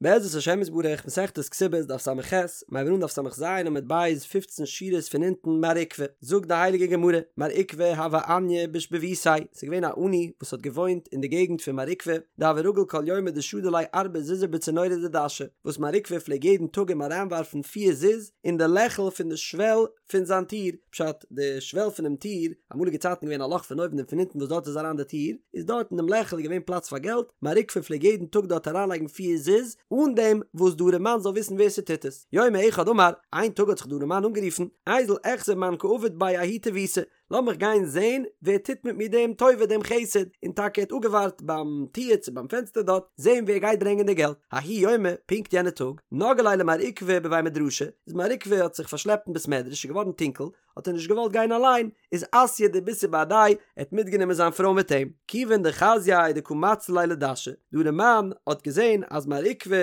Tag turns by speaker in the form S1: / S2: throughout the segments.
S1: בעזרת השם יתברך, מסכת כתובות, דף ס"ח, מיר הייבן אן דף ס"ז עמוד ב', פופצן שורות פון אונטן, מר עוקבא, זאגט די הייליגע גמרא, מר עוקבא הוה עניא בשיבבותיה, ס'איז געווען א עני וואס האט געוואוינט אין די געגנט פון מר עוקבא, דהוה רגיל כל יומא דשדי ליה ארבע זוזי בצינורא דדשא, וואס מר עוקבא פלעג יעדן טאג אים אריינווארפן פיר זוז אין די לעכל פון די שוועל פון זיין טיר, פשט, די שוועל פונעם טיר, אמאליגע צייטן געווען א לאך פון אויבן און פון אונטן וואס דארט איז אריין די טיר, איז דארט אין דעם לעכל איז געווען פלאץ פאר געלט, מר עוקבא פלעג יעדן טאג דארט אריינלייגן פיר זוז, אן דעם וואס די ארעמאן זאל וויסן ווער ס'טוט עס. יומא אחד אמר, איין טאג האט זיך די ארעמאן אנגערופן, איזיל איחזי מאן קא עביד בי ההוא טיבותא, לאמיך גיין זען ווער טוט מיט מיר דעם טובה דעם חסד, און טאקע ער האט אפגעווארט ביים טיר צו ביים פענסטער דארט, זען ווער גייט ברענגען די געלט. ההוא יומא, פונקט יענע טאג, נגהא ליה למר עוקבא בבי מדרשא, איז מר עוקבא האט זיך פארשלעפט אין בית מדרש, איז געווארן טונקל, האט ער נישט געוואלט גיין אליין, איז אתייה דביתהו בהדיה, ער האט מיטגענומען זיין פרוי מיט אים. כיוון דחזייה דקא מצלי ליה לדשא, די ארעמאן האט געזען אז מר עוקבא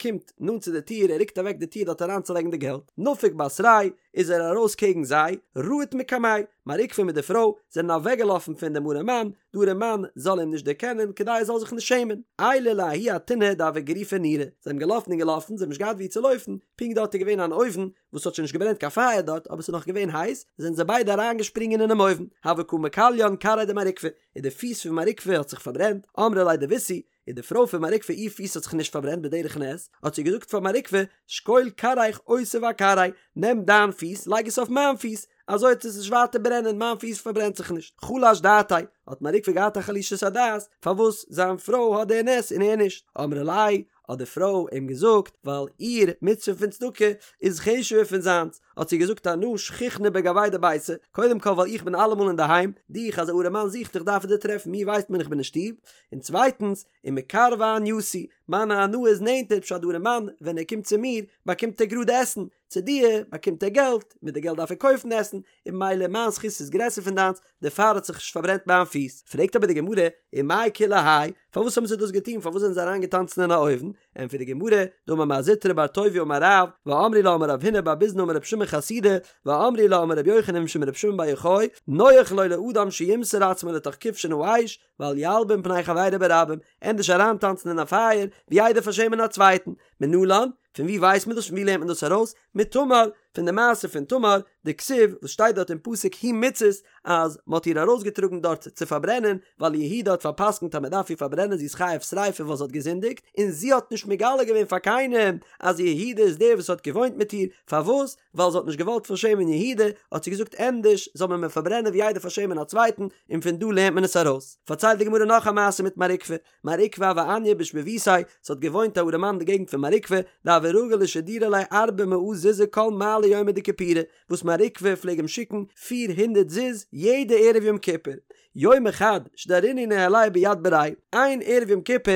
S1: קומט נאנט צו די טיר, ער רוקט אוועק די טיר דארט אריינצולייגן די געלט, נפק בתרייהו, איז ער ארויס קעגן זיי, רהט מקמיה, מר עוקבא מיט די פרוי זענען אוועקגעלאפן פון דעם ארעמאן, די ארעמאן זאל אים נישט דערקענען כדי ער זאל זיך נישט שעמען. עייליה לההוא אתונא דהוה גריפא נורא, זיי האבן געלאפן און געלאפן, זיי האבן נישט געהאט וואו צו לויפן, פונקט דארט איז געווען אן אויוון וואס האט שוין נישט געברענט קיין פייער דארט אבער ס'איז נאך געווען הייס, זענען זיי ביידע אריינגעשפרינגען אינעם אויוון, הוה קא מכליין כרעיה דמר עוקבא, און די פיס פון מר עוקבא האט זיך פארברענט, אמרה ליה דביתהו, און די פרוי פון מר עוקבא איר פיס האט זיך נישט פארברענט בדרך נס, האט זי געזאגט פאר מר עוקבא, שקול כרעיך אותיב אכרעאי, נעם דיין פיס לייג עס אויף מיין פיס, אזוי וועט עס נישט ווייטער ברענען, מיין פיס פארברענט זיך נישט. חלש דעתיה, האט מר עוקבא געהאט א חלישות הדעת, פארוואס זיין פרוי האט די נס און ער נישט. אמרה ליה, האט די פרוי אים געזאגט, ווייל איר מצוה פון צדקה איז חשוב'ער פון זיינס, האט זי געזאגט אנא שכיחנא בגויה דביתא, קודם כל ווייל איך בין אלעמאל אינדערהיים, דיך אז א ארעמאן זוכט דיך דארף ער דיר טרעפן, מיר ווייסט מען איך בין אין שטוב, און צווייטנס, ומקרבא ענייתי, מיין הנאה איז נענטער, פשט די ארעמאן ווען ער קומט צו מיר באקומט ער גראד עסן, צו דיר באקומט ער געלט, מיט די געלט דארף ער קויפן עסן, און ממילא מיין זכות איז גרעסער פון דיינס, דערפאר האט זיך נישט פארברענט מיין פיס. פרעגט אבער די גמרא, ומאי כולי האי, פארוואס האבן זיי דאס געטון, פארוואס זענען זיי אריינגעטאנצן אין א אויוון? ענטפערט די גמרא, דאמר מר זוטרא בר טוביה אמר רב, ואמרי לה אמר רב הונא בר ביזנא אמר רב שמעון חסידא, ואמרי לה אמר רבי יוחנן משום רבי שמעון בר יוחאי, נוח לו לאדם שימסור עצמו לתוך כבשן האש, ואל ילבין פני חברו ברבים, ענדערש אריינטאנצן אין א פייער, ווי איידער פארשעמען א צווייטן. מנלן, פון ווי ווייסט מען דאס? פון ווי לערנט מען דאס ארויס? מתמר, פון די מעשה פון תמר, דכתיב, וואס שטייט דארט אין פסוק היא מוצאת, אז מען האט איר ארויסגעטראגן דארט צו פארברענען, ווייל יהודה האט פאר'פסק'נט אז מען דארף איר פארברענען זי איז חייב שריפה ווייל זי האט געזינדיגט, און זי האט נישט מגלה געווען פאר קיינעם אז יהודה איז דער וואס האט געוואוינט מיט איר, פארוואס? ווייל זי האט נישט געוואלט פארשעמען יהודה, האט זי געזאגט ענדערש זאל מען מיר פארברענען ווי איידער פארשעמען א צווייטן, און פון דא לערנט מען עס ארויס. פארציילט די גמרא נאך א מעשה מיט מר עוקבא, מר עוקבא הוה עניא בשיבבותיה, ס'האט געוואוינט א ארעמאן אין די געגנט פון מר עוקבא, דהוה רגיל לשדורי ליה ארבע מאה זוזי כל מעלי יומא דכיפורי, וואס מר עוקבא פלעג אים שיקן פיר הונדערט זוז יעדע ערב יום כיפור. יומא חד שדרינהו ניהליה ביד בריה, איין ערב יום כיפור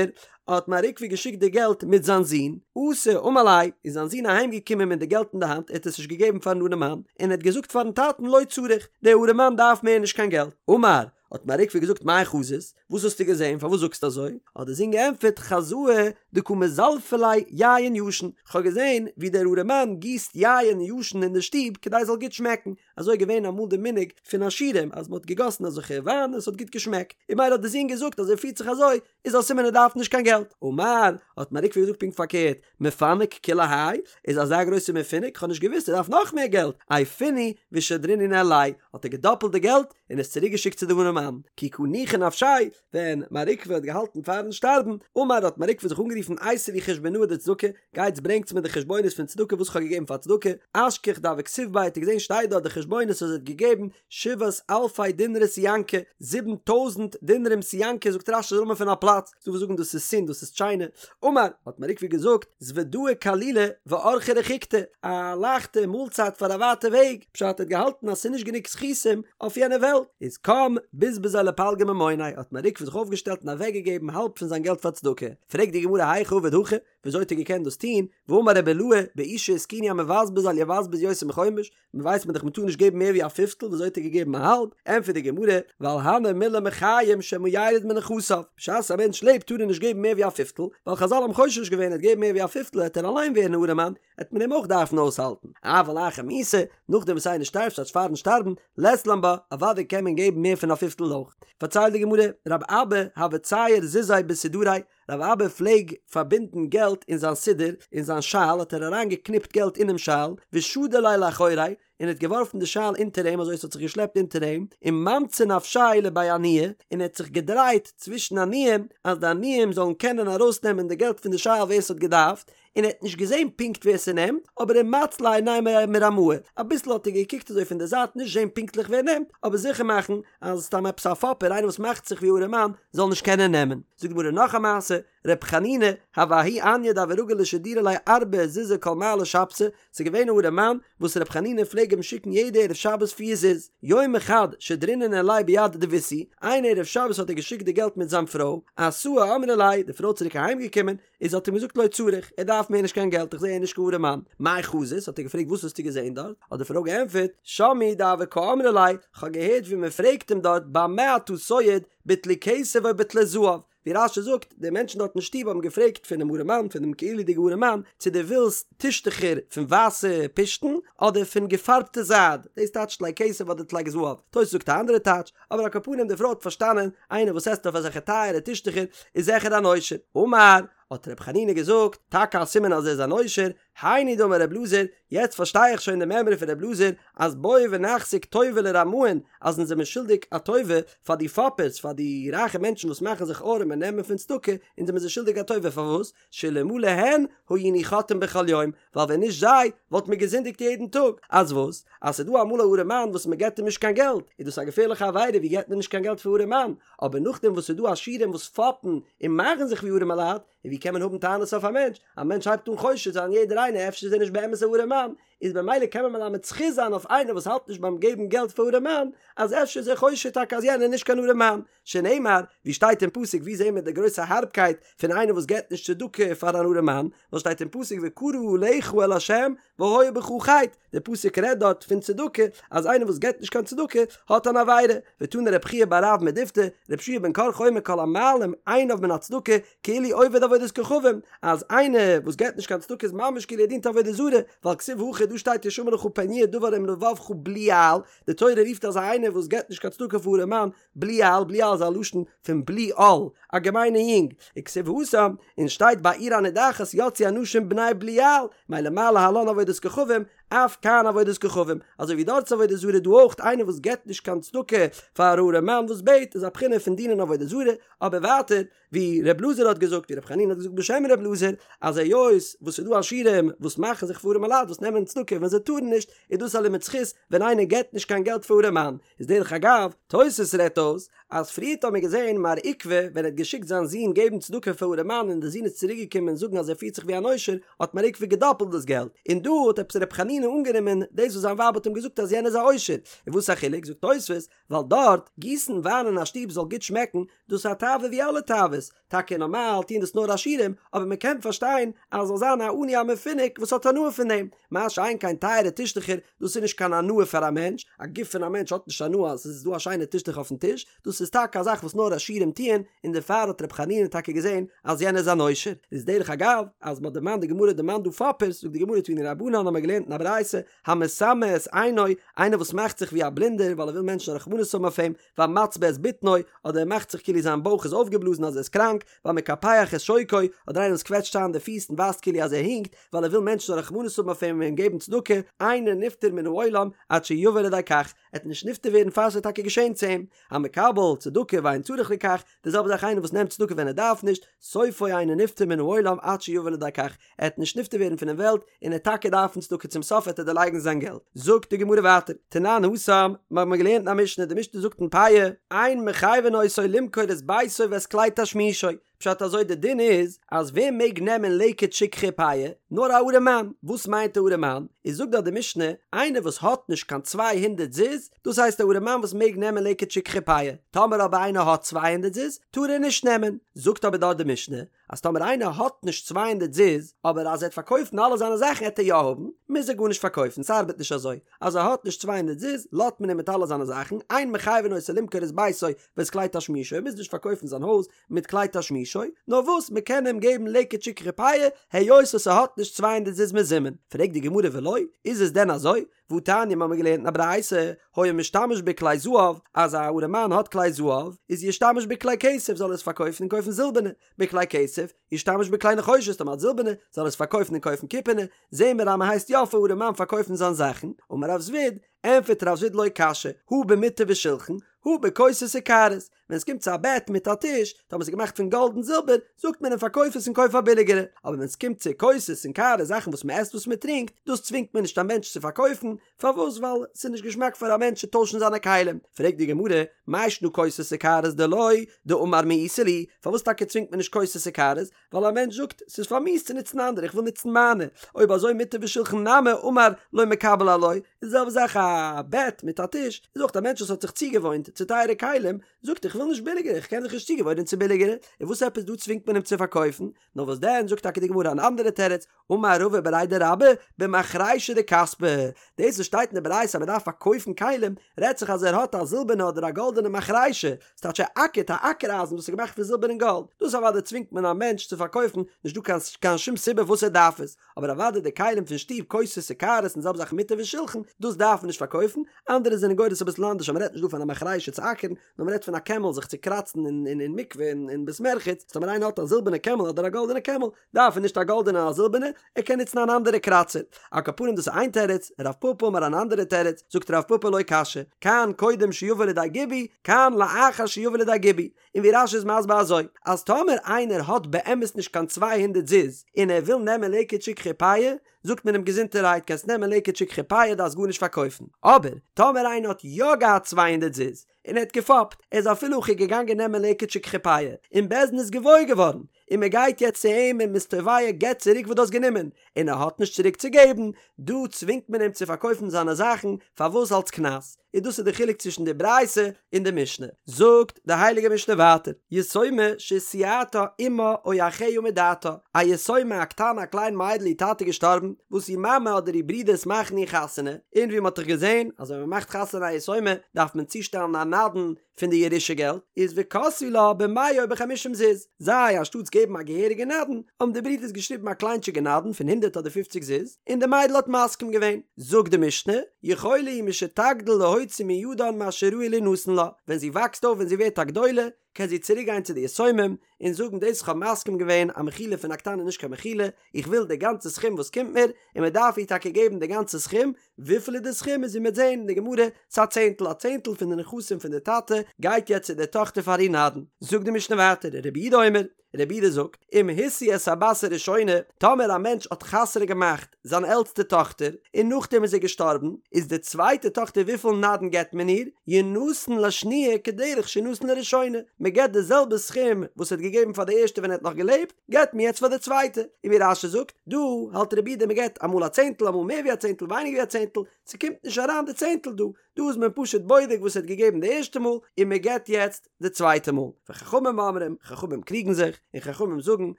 S1: האט מר עוקבא געשיקט די געלט מיט זיין זון, אתא אמר ליה, איז זיין זון אהיים געקומען מיט די געלט אין די האנט, ער האט עס נישט געגעבן פארן ארעמאן, און ער האט געזאגט פארן טאטן לא צריך, דער ארעמאן דארף מער נישט קיין געלט. אמר, האט מר עוקבא געזאגט מאי חזית, וואס האסטו געזען, פארוואס זאגסטו אזוי? האט דער זון געענטפערט, חזאי דקא מזלפי ליה יין ישן, כ'האב געזען ווי דער ארעמאן גיסט יין ישן אין די שטוב כדי עס זאל גוט שמעקן, אזוי איז געווען אמאל די מנהג פון עשירים אז מען האט געגאסן אזעלכע וויין און עס האט גוט געשמעקט, און ממילא האט די זון געזאגט אז ער פירט זיך אזוי איז א סימן ער דארף נישט קיין געלט. אמר, האט מר עוקבא געזאגט פונקט פארקערט, מפנק כולי האי, איז אזא גרויסע מפונק, כ'האב נישט געוואוסט ער דארף נאך מער געלט, עייפינהו ושדרינהו ניהליה, האט ער געדאפלט די געלט און עס צוריק געשיקט צו די ארעמאן, כי קא ניחא נפשיה, ווען מר עוקבא האט געהאלטן פארן שטארבן, אמר האט מר עוקבא זיך אנגערופן אייתו לי חושבנאי דצדקה, גייטס ברענגטס מיר די חשבונות פון צדקה וואס כ'האב געגעבן פאר צדקה, אשכח דהוה כתיב ביה האט ער געזען שטייט דארט די חשבונות אז ער האט געגעבן שבעת אלפי דינרי סיאנקי, 7000 דינרים סיאנקי זאגט רש"י איז א נאמען פון א פלאץ, ס'דא וואס זאגן דאס איז סין דאס איז טשיינע, אמר, האט מר עוקבא געזאגט, זוודאי קלילא ואורחא רחיקתא, א לייכטע מאלצייט פאר א ווייטע וועג, פשט ער האט געהאלטן אז ס'איז נישט גענוג זכותים אויף יענע וועלט, איז קם בזבזיה לפלגא ממוניה, האט מר עוקבא זיך אויפגעשטעלט און אוועקגעגעבן האלב פון זיין געלט פאר צדקה, פרעגט די גמרא היכי עביד הכי, וויאזוי האט ער געקענט דאס טון, והאמר רבי אילעא, באושא התקינו המבזבז אל יבזבז יותר מחומש, מען ווייסט מען דאך מען טאר נישט געבן מער ווי א פיפטל, וויאזוי האט ער געגעבן א האלב? ענטפערט די גמרא, ווייל הני מילי מחיים שמא ירד מנכסיו, בשעת א מענטש לעבט טאר ער נישט געבן מער ווי א פיפטל, ווייל חזל האבן חושש געווען ער וועט געבן מער ווי א פיפטל העט ער אליין ווערן ארעמאן, העט מען אים אויך דארפן אויסהאלטן, אבל אחר מיתה, נאכדעם וואס איינער שטארבט ס'טייטש פארן שטארבן, לית לן בה, אוודאי קען מען געבן מער פון א פיפטל אויך. פארציילט די גמרא, רב אבא הוה צייר זוזי בסודריה, רב אבא פלעג פארבינדן געלט אין זיין סודר, אין זיין שאל האט ער אריין געקניפט געלט אינעם שאל, ושדי ליה לאחוריה, און האט געווארפן די שאל אונטער אים אזוי עס האט זיך געשלעפט אונטער אים, וממצי נפשיה לבי עניי, און ער האט זיך געדרייט צווישן עניים, אז די עניים זאלן קענען ארויסנעמען די געלט פון די שאל ווער עס האט געדארפט, און ער האט נישט געזען פונקט ווער ס'נעמט, אבער ומצלי עיניה מרמאי, אביסל האט ער געקוקט אזוי פון די זייט נישט זען פונקטליך ווער נעמט, אבער זיכער מאכן אז סתם עפעס א פאפער איינער וואס מאכט זיך ווי ארעמאן זאל נישט קענען נעמען. זאגט די גמרא נאך א מעשה, ר' חנינא, הוה ההוא עניא דהוה רגיל לשדורי ליה ארבעה זוזי כל מעלי שבתא, ס'איז געווען א ארעמאן וואס ר' חנינא פלעג אים שיקן יעדע ערב שבת פיר זוז, יומא חד שדרינהו ניהליה ביד דביתהו, איין ערב שבת האט ער געשיקט די געלט מיט זיין פרוי, אתאי אמרה ליה, די פרוי צוריק אהיים געקומען, איז האט אים געזאגט לא צריך, ער דארף מער נישט קיין געלט, איך זע ער איז נישט קיין ארעמאן. מאי חזית, האט ער געפרעגט וואס האסטו געזען דארט? האט די פרוי געענטפערט, שמעי דהוה קאמרה ליה, כ'האב געהערט ווי מען פרעגט אים דארט במה אתה סועד, בטלי כסף או בטלי זהב, ווי רש"י זאגט, די מענטשן דארט אין שטוב האבן געפרעגט פונעם ארעמאן, פון דעם כאילו'דיגע ארעמאן, צו דו ווילסט טישטעכער פון ווייסע פשתן, אדער פון געפארבטע זייד, דאס טייטשט טלי כסף אדער טלי זהב, תוס' זאגט א אנדערע טייטש, אבער על כל פנים די פרוי האט פארשטאנען, איינער וואס עסט אויף אזעלכע טייערע טישטעכער איז זיכער אן עושר. אמר, האט ר' חנינא געזאגט, טאקע א סימן אז ער איז אן עושר, היינו דאמר ר' אלעזר, יעצט פארשטיי איך שוין די מימרא פון ר' אלעזר, אז בואו ונחזיק טובה לרמאין, אז אונז זעמיר שולדיג א טובה פאר די פאפערס, פאר די רייכע מענטשן וואס מאכן זיך ארעם און נעמען פון צדקה, אונז זעמיר זיי שולדיג א טובה, פארוואס? שאלמלא הן היינו חוטאין בכל יום, ווייל ווען נישט זיי, וואלט מען געזינדיגט יעדן טאג. אז וואס? אז ס'איז דא אמאל א ארעמאן וואס מען געבט אים נישט קיין געלט, איז דאס א געפערליכע עבירה, ווי געבט מען נישט קיין געלט פאר ארעמאן? אבער נאכדעם וואס ס'איז דא עשירים וואס פאפן און מאכן זיך ווי ארעמעלייט, און ווי קען מען האבן טענות אויף א מענטש? א מענטש הייבט אן חושד זיין יעדער איינער אפשר איז ער נישט באמת א ארעמאן, איז במילא קען מען מלמד זכות זיין אויף איינער וואס האלט נישט ביים געבן געלט פאר ארעמאן, אז אפשר איז ער חושד טאקע אז יענער איז נישט קיין ארעמאן, שנאמר, ווי שטייט אין פסוק ווי זעהן מיר די גרויסע הארבקייט פון איינער וואס געבט נישט צדקה פאר אן ארעמאן, ווייל שטייט אין פסוק וקרא עליך אל ה' והיה בך חטא, די פסוק רעדט דארט פון צדקה, אז איינער וואס געבט נישט קיין צדקה האט אן עבירה, ותני רב חייא בר רב מדיפתי, רבי יהושע בן קרחה אומר כל המעלים עיניו מן הצדקה כאילו עובד עבודת כוכבים, אז איינער וואס געבט נישט קיין צדקה איז ממש כאילו ער דינט עבודה זרה, ווייל כתיב הכא דא שטייט השמר לך פן יהיה דבר עם לבבך בליעל, די תורה רופט אזא איינער וואס געבט נישט קיין צדקה פאר ארעמאן בליעל, בליעל איז א לשון פון בלי עול, א געמיינע יונג, וכתיב התם, און שטייט בעיר הנידחת יצאו אנשים בני בליעל, מילא מה להלן עבודת כוכבים, אף כאן עבודת כוכבים, אזוי ווי דארט איז עבודה זרה דא אויך איינער וואס געבט נישט קיין צדקה פאר א ארעמאן וואס בעט איז א בחינה פון דינען עבודה זרה, אבער ווייטער ווי ר' אלעזר האט געזאגט ווי ר' חנינא האט געזאגט בשם ר' אלעזר אז היות וואס ס'איז דא עשירים וואס מאכן זיך פאר ארעמעלייט וואס נעמען צדקה ווען זיי טארן נישט איז דאס א לימוד זכות ווען איינער געבט נישט קיין געלט פאר ארעמאן איז דרך אגב תוס' רעדט אויס אז פריערט האט מען געזען מר עוקבא ווען ער האט געשיקט זיין זון געבן צדקה פאר ארעמאן און די זון איז צוריק געקומען זאגן אז ער פירט זיך ווי אן עושר האט מר עוקבא געדאפלט דאס געלט און דא האט עפעס ר' חנינא אנגענומען דאס וואס זיין ווייב האט אים געזאגט אז יענער איז א עושר און וואס איז א חילוק זאגט תוס' ווייל דארט, גיסן וויין אין א שטוב זאל גוט שמעקן, דאס איז א תאווה ווי אלע תאוות, טאקע נארמאל טוען דאס נאר עשירים, אבער מען קען פארשטיין אז זאל זיין א עני א מפונק וואס האט הנאה פון דעם, מה שאין כן טייערע טישטעכער, דאס איז נישט קיין הנאה פאר א מענטש, א גוף פון א מענטש האט נישט הנאה אז עס איז דא א שיינע טישטוך אויפן טיש, דאס איז טאקע א זאך וואס נאר עשירים טוען, און דערפאר האט ר' חנינא טאקע געזען אז יענער איז אן עושר. איז דרך אגב, אז מען האט דערמאנט די גמרא דערמאנט דא פאפערס, זאגט די גמרא תנו רבנן האבן מיר געלערנט אין א ברייתא, המסמא את עינו, איינער וואס מאכט זיך ווי א בלינדער ווייל ער וויל מענטשן רחמנות האבן אויף אים, והמצבה את בטנו, אדער ער מאכט זיך כאילו זיין בויך איז אויפגעבלאזן אז ער איז קראנק, והמקפח את שוקו, אדער איינער וואס קוועטשט איין די פיס און ווייזט כאילו אז ער הינקט, ווייל ער וויל מענטשן זאלן רחמנות האבן אויף אים און אים געבן צדקה, אינו נפטר מן העולם עד שיבא לידי כך, ער וועט נישט נפטר ווערן פאר ס'וועט טאקע געשען צו אים. המקבל צדקה ואין צריך לכך, די זעלבע זאך איינער וואס נעמט צדקה ווען ער דארף נישט, סופו אינו נפטר מן העולם עד שיבא לידי כך, ער וועט נישט נפטר ווערן פונעם וועלט, און ער וועט טאקע דארפן צדקה צום סוף וועט ער דערלייגן זיין געלט. זאגט די גמרא ווייטער, תנן התם, מיר האבן געלערנט אין א משנה, די משנה זאגט אין פאה, אין מחייבין אותו למכור את ביתו ואת כלי תשמישו, פשט אזוי די דין איז אז ווער מעג נעמען לקט שכחה פאה? נאר א ארעמאן, וואס מיינט א ארעמאן? איז זאגט דארט די משנה, איינער וואס האט נישט קיין צוויי הונדערט זוז, דאס הייסט א ארעמאן וואס מעג נעמען לקט שכחה פאה, טאמער אבער איינער האט צוויי הונדערט זוז, טאר ער נישט נעמען, זאגט אבער דארט די משנה, אז טאמער איינער האט נישט צוויי הונדערט זוז, אבער אז ער וועט פארקויפן אלע זיינע זאכן העט ער יא האבן, מוז ער גארנישט פארקויפן, ס'ארבעט נישט אזוי, אז ער האט נישט צוויי הונדערט זוז, לאזט מען אים מיט אלע זיינע זאכן, אין מחייבין אותו למכור את ביתו ואת כלי תשמישו, ער מוז נישט פארקויפן זיין הויז מיט כלי תשמישו, נאר וואס מ'קען אים געבן לקט שכחה פאה, היות וואס ער האט נישט צוויי הונדערט זוז מזומן. פרעגט די גמרא ולא, איז עס דען אזוי? והתניא מ'האמיר געלערנט אין א ברייתא, היה משתמש בכלי זהב, אז א ארעמאן האט כלי זהב, איז ישתמש בכלי כסף זאל ער עס פארקויפן און קויפן זילבערנע, בכלי כסף. כסף, ישתמש בכלי נחושת, טאמער האט זילבערנע, זאל ער עס פארקויפן און קויפן קופערנע, זעהן מיר אז מען הייסט יא פאר ארעמאן פארקויפן זיין זאכן, אמר רב זביד, ענפערט רב זביד לא קשיא, הא במטה ושלחן, הא בכוסות וקערות, ווען עס קומט צו א בעט מיט א טיש, טאמער עס איז געמאכט פון גאלד און זילבער, זאגט מען אים פארקויף עס און קויף א ביליגערע, אבער ווען עס קומט צו כוסות און קערות זאכן וואס מען עסט וואס מען טרינקט, דאס צווינגט מען נישט א מענטש צו פארקויפן, פארוואס ווייל עס איז נישט געשמאק פאר א מענטש צו טוישן זיינע כלים, פרעגט די גמרא, מאי שנא כוסות וקערות דלא דאמר מאיסי לי, פארוואס טאקע צווינגט מען נישט כוסות וקערות, ווייל א מענטש זאגט, ס'איז פארמיאוסט צו נוצן אנדערע, איך וויל נוצן מיינע, אויב אזוי מטה ושלחן נמי אמר לא מקבל עילואי, איז די זעלבע זאך א בעט מיט א טיש, איז אויך א מענטש וואס האט זיך צוגעוואוינט צו טייערע כלים, זאגט איך וויל נישט ביליגערע, איך קען זיך נישט צוגעוואוינען צו ביליגערע, און וואס עפעס דא צווינגט מען אים צו פארקויפן, נאר וואס דען זאגט טאקע די גמרא אן אנדערע תירוץ, אמר רבא בריה דרבה, במחרישה דכספא, דאס וואס שטייט אין די ברייתא אז מען דארף פארקויפן כלים, רעדט זיך אז ער האט א זילבערנע אדער א גאלדענע מחרישה, ס'טייטש ער אקערט א אקער אייזן וואס איז געמאכט פון זילבער און גאלד, דאס אוודאי צווינגט מען א מענטש צו פארקויפן, נישט דא קיין קיין שום סיבה וואס ער דארף עס, אבער אוודאי די כלים פון שטוב כוסות וקערות און זעלבע זאך מטה ושלחן, דאס דארף מען נישט פארקויפן, אנדערע זענען גורס אביסל אנדערש אז מען רעדט נישט דא פון א מחרישה צו אקערן, נאר מען רעדט פון א קעמל זיך צו קראצן אין אין מקווה און אין בית מרחץ, טאמער איינער האט א זילבערנע קעמל אדער א גאלדענע קעמל, דארף ער נישט א גאלדענע און א זילבערנע, ער קען נוצן אן אנדערע קראצער. על כל פנים דאס איז איין תירוץ, רב פפא אמר אן אנדערע תירוץ, זאגט רב פפא לא קשיא, כאן קודם שיבא לידי גיבוי, כאן לאחר שיבא לידי גיבוי. און ווי רש"י איז מסביר אזוי, אז טאמער איינער האט באמת נישט קיין צוויי הונדערט זוז, און ער וויל נעמען לקט שכחה פאה, זאגט מען אים געזונטערהייט קענסט נעמען לקט שכחה פאה דארפסט גארנישט פארקויפן. אבער, טאמער איינער האט יא געהאט צוויי הונדערט זוז, און ער האט געפאפט, ער איז אפילו הכי געגאנגען נעמען לקט שכחה פאה, און בית דין איז געוואויר געווארן, און מען גייט יעצט צו אים און מ'איז תובע געב צוריק וואס דו האסט גענומען, און ער האט נישט צוריק צו געבן, דא צווינגט מען אים צו פארקויפן זיינע זאכן, פארוואס אלס קנס? און דאס איז די חילוק צווישן די ברייתא און די משנה. זאגט די הייליגע משנה ווייטער, יתומה שהשיאתה אמה או אחיה מדעתה, א יתומה א קטנה א קליין מיידל איר טאטע איז געשטארבן, וואס איר מאמע אדער איר ברודערס מאכן איר חתונה, און ווי מען האט דאך געזען אז ווען מען מאכט חתונה א יתומה דארף מען צושטעלן א נדן פון די ירושה געלט, איז וכתבו לה במאה או בחמישים זוז, זיי אנשטאטס געבן א געהעריגע נדן, האבן די ברידערס געשריבן א קליינטשיגע נדן פון הונדערט אדער פופציג זוז, און די מיידל האט מסכים געווען. זאגט די משנה, יכולה היא משתגדיל להוציא מידן מה שראוי לינתן לה, ווען זי וואקסט אויף ווען זי ווערט א גדולה, קען זי צוריק גיין צו די יתומים און זאגן דאס איך האב מסכים געווען א מחילה פון א קטנה איז נישט קיין מחילה, איך וויל די גאנצע סכום וואס קומט מיר, און מען דארף איר טאקע געבן די גאנצע סכום, וויפיל איז די סכום איז ווי מ'וועט זעהן אין די גמרא, ס'איז א צענטל, א צענטל פון די נכסים פון די טאטע גייט יעצט צו די טאכטער פאר איר נדן. זאגט די משנה ווייטער, רבי יהודה אומר, רבי יהודה זאגט, אם השיא את הבת הראשונה, טאמער א מענטש האט חתונה געמאכט זיין עלטסטע טאכטער, און נאכדעם איז ער געשטארבן, איז די צווייטע טאכטער וויפיל נדן געבט מען איר? ינתן לשניה כדרך שנתן לראשונה, מען געבט די זעלבע סכום וואס ער האט געגעבן פאר די ערשטע ווען ער האט נאך געלעבט, געבט מען יעצט פאר די צווייטע, און ווי רש"י זאגט, דא האלט רבי יהודה מען געבט אמאל א צענטל אמאל מער ווי א צענטל ווייניגער ווי א צענטל, ס'קומט נישט אריין די צענטל דא, דא איז מען פשוט בודק וואס ער האט געגעבן די ערשטע מאל און מען געבט יעצט די צווייטע מאל, וחכמים אומרים, חכמים קריגן זיך, און חכמים זאגן,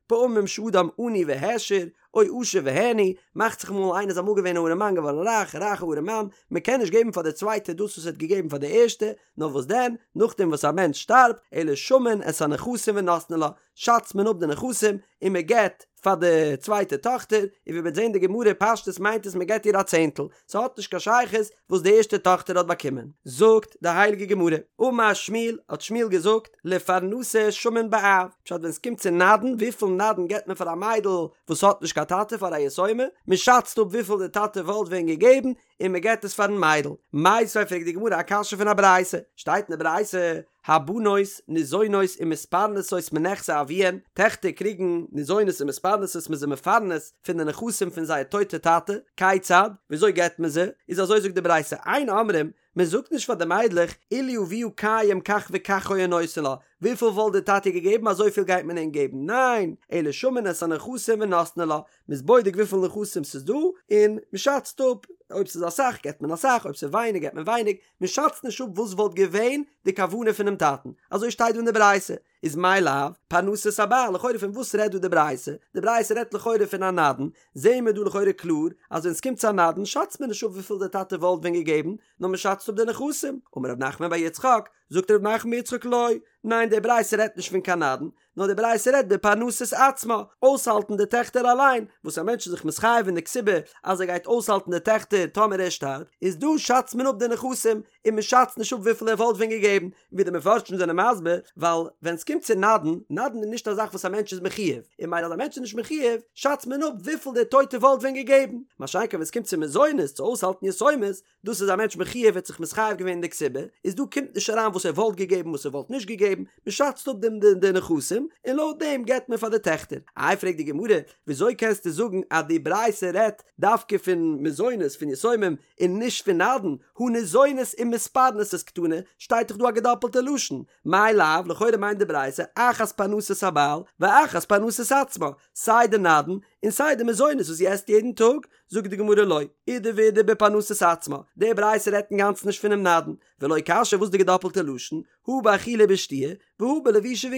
S1: פעמים שאדם עני והעשיר, או עשיר והעני, מאכט זיך אמאל איינער איז אמאל געווען א ארעמאן געווארן רייך, רייכע ארעמאן, מען קען נישט געבן פאר די צווייטע דאס וואס ער האט געגעבן פאר די ערשטע, נאר וואס דען, נאכדעם וואס א מענטש שטארבט, אלא שמין את הנכסים ונותנין לה, שאצט מען אפ די נכסים און מען געבט פאר די צווייטע טאכטער, און ווי מ'וועט זען די גמרא פשטות מיינט עס מען געבט איר א צענטל, ס'האט נישט קיין שייכות וואס די ערשטע טאכטער האט באקומען. זאגט די הייליגע גמרא, אמר שמואל, האט שמואל געזאגט, לפרנסה שמין באב, פשט ווען ס'קומט צו נדן, וויפיל נדן געבט מען פאר א מיידל וואס האט נישט קיין טאטע פאר א יתומה, מען שאצט אפ וויפיל די טאטע וואלט ווען געגעבן, און מען געבט עס פארן מיידל. מיתיבי פרעגט די גמרא א קשיא פון א ברייתא, שטייט אין די ברייתא, הבנות ניזונות ומתפרנסות מנכסי אביהן, טעכטער קריגן ניזונות און מתפרנסות מ'איז זיי מפרנס פון די נכסים פון זייער טויטע טאטע, כיצד? וויאזוי געבט מען זיי? איז אזוי זאגט די ברייתא, אין אומרים, מען זאגט נישט פאר די מיידלעך, אילו אביה קיים כך וכך היה נותן לה, וויפיל וואלט די טאטע געגעבן אזויפיל גייט מען אים געבן, ניין, אלא שמין את הנכסים ונותנין לה, מ'איז בודק וויפיל נכסים ס'איז דא, און מ'שאצט אפ, אויב ס'איז אסאך געבט מען אסאך, אויב ס'איז ווייניג געבט מען ווייניג, מ'שאצט נישט אפ וואס וואלט געווען די כוונה פונעם טאטן, אזוי שטייט דא אין די ברייתא, איז מאי לאו, פרנסת הבעל, לכאורה פון וואס רעדט דא די ברייתא? די ברייתא רעדט לכאורה פון א נדן, זעהן מיר דא לכאורה קלאר אז ווען ס'קומט צו א נדן שאצט מען נישט אפ וויפיל די טאטע וואלט ווען געגעבן, נאר מ'שאצט אפ די נכסים, אמר רב נחמן בר יצחק, זאגט רב נחמן בר יצחק לא, ניין די ברייתא רעדט נישט פון קיין נדן, נאר די ברייתא רעדט בפרנסת עצמה, אויסהאלטן די טעכטער אליין, וואס א מענטש איז זיך מתחייב אין די כתובה אז ער גייט אויסהאלטן די טעכטער טאמער ער שטארבט, איז דא שאצט מען אפ די נכסים, און מען שאצט נישט אפ וויפיל ער וואלט ווען געגעבן, ווי די מפרשים זענען מסביר, ווייל ווען ס'קומט צו נדן, נדן איז נישט א זאך וואס א מענטש איז מחויב, און ממילא אז א מענטש איז נישט מחויב, שאצט מען אפ וויפיל דער טויטער וואלט ווען געגעבן, מה שאין כן ווען ס'קומט צו מזונות, צו אויסהאלטן יתומות, דאס איז א מענטש מחויב ער האט זיך מתחייב געווען אין די כתובה, איז דא קומט נישט אריין וואס ער וואלט געגעבן וואס ער וואלט נישט געגעבן, מען שאצט אפ דעם די נכסים, און לויט דעם געבט מען פאר די טעכטער. איי פרעגט די גמרא, וויאזוי קענסטו זאגן אז די ברייתא רעדט דווקא פון מזונות פון יתומים און נישט פון נדן, הא ניזונת ומתפרנסת קתני, שטייט דאך דא א געדאפלטע לשון, מאי לאו, לכאורה מיינט די ברייתא אחת פרנסת הבעל ואחת פרנסת עצמה, סיי די נדן און סיי די מזונות וואס זי עסט יעדן טאג, זאגט די גמרא לא, אידי ואידי בפרנסת עצמה, די ברייתא רעדט אינגאנצן נישט פונעם נדן, ולא קשיא וואס די געדאפלטע לשון, הא באכילה ובשתיה, והא בלבישה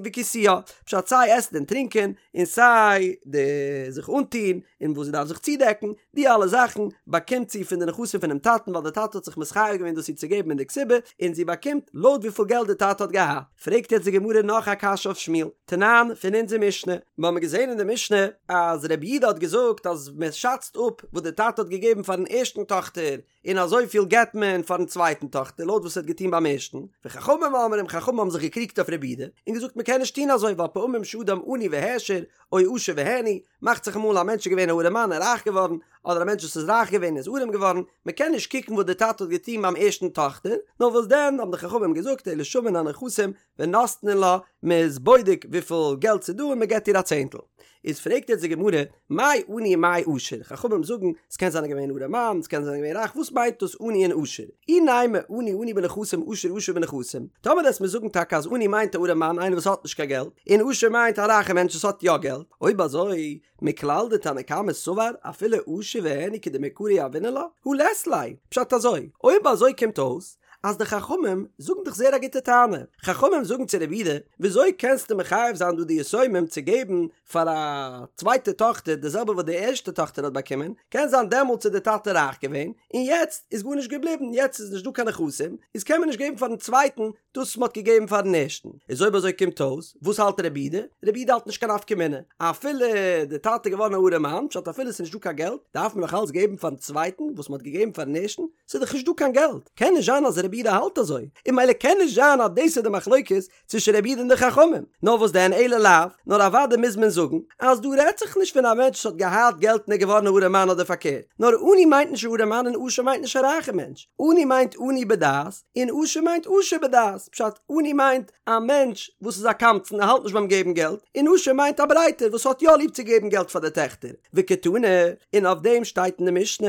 S1: וכיסויה, פשט סיי עסן און טרינקען, און סיי די זיך אנטוהן, און וואס זי דארף זיך צודעקן, די אלע זאכן באקומט זי פון די נכסים פונעם טאטן ווייל די טאטע האט זיך מתחייב געווען דאס איר צו געבן אין די כתובה, און זי באקומט לויט וויפיל געלט די טאטע האט געהאט. פרעגט יעצט די גמרא נאך א קשיא אויף שמואל, תנן, פון אונזער משנה, מיר האבן געזען אין די משנה אז רבי יהודה האט געזאגט אז מען שאצט אפ וואס די טאטע האט געגעבן פארן ערשטן טאכטער, און אזויפיל געבט מען פארן צווייטן טאכטער לויט וואס ער האט געטון ביים ערשטן, וחכמים אומרים חכמים האבן זיך געקריגט אויף רבי יהודה און געזאגט מען קען נישט טון אזוי ווייל פעמים שאדם עני והעשיר או עשיר והעני, מאכט זיך אמאל א מענטש איז געווען א ארעמאן און רייך געווארן, אדער א מענטש וואס איז רייך געווען איז ארעם געווארן, מען קען נישט קוקן וואס דער טאטע האט געטון ביים ערשטן טאכטער, נאר וואס דען האבן די חכמים געזאגט אלא שמין הנכסים ונותנין לה, מען איז בודק וויפיל געלט ס'איז דא און מען געבט איר א צענטל. איז פרעגט יעצט די גמרא, מאי עני ומאי עשיר, חכמים זאגן, ס'קען זיין ער געווען ארעמאן, ס'קען זיין ער געווען רייך, וואס מיינט דאס עני און עשיר? אי נימא עני עני בנכסים עשיר עשיר בנכסים, טאמער וועסט מיר זאגן טאקע אז עני מיינט א ארעמאן איינער וואס האט נישט קיין געלט, און עשיר מיינט א רייכע מענטש וואס האט יא געלט, אויב אזוי, מכלל דתנא קמא סבר אפילו עשיר והעני כדמעיקרא יהבינן לה, הא לית ליה, פשט אזוי, אויב אזוי קומט אויס אז די חכמים זאגן דאך זייער א גוטע טענה, חכמים זאגן צו רבי יהודה, וויאזוי קענסטו מחייב זיין דא די יתומים צו געבן פאר א צווייטע טאכטער די זעלבע וואס די ערשטע טאכטער האט באקומען, קען זיין דעמאלטס איז די טאטע רייך געווען, און יעצט איז גארנישט געבליבן, יעצט איז נישט דא קיין נכסים, איז קען מען נישט געבן פארן צווייטן דאס וואס מ'האט געגעבן פארן ערשטן. איז אויב אזוי קומט אויס, וואס האלט רבי יהודה? רבי יהודה האלט נישט קיין נפקא מינה, אפילו די טאטע איז געווארן א ארעמאן, פשט אפילו ס'איז נישט דא קיין געלט, דארף מען נאך אלץ געבן פארן צווייטן וואס מ'האט געגעבן פארן ערשטן, ס'איז דאך נישט דא קיין געלט, קען נישט זיין אז רבי יהודה האלט אזוי, און ממילא קען נישט זיין אז דאס איז די מחלוקת צווישן רבי יהודה און די חכמים, נאר וואס דען אלא לאו, נאר אוודאי מוז מען זאגן אז דא רעדט זיך נישט פון א מענטש וואס האט געהאט געלט און איז געווארן א ארעמאן אדער פארקערט, נאר עני מיינט נישט א ארעמאן און עשיר מיינט נישט א רייכע מענטש, עני מיינט עני בדעת און עשיר מיינט עשיר בדעת, פשט, עני מיינט א מענטש וואס איז א קמצן ער האלט נישט ביים געבן געלט, און עשיר מיינט א ברייטער וואס האט יא ליב צו געבן געלט פאר די טעכטער, וקתני, און אויף דעם שטייט אין די משנה,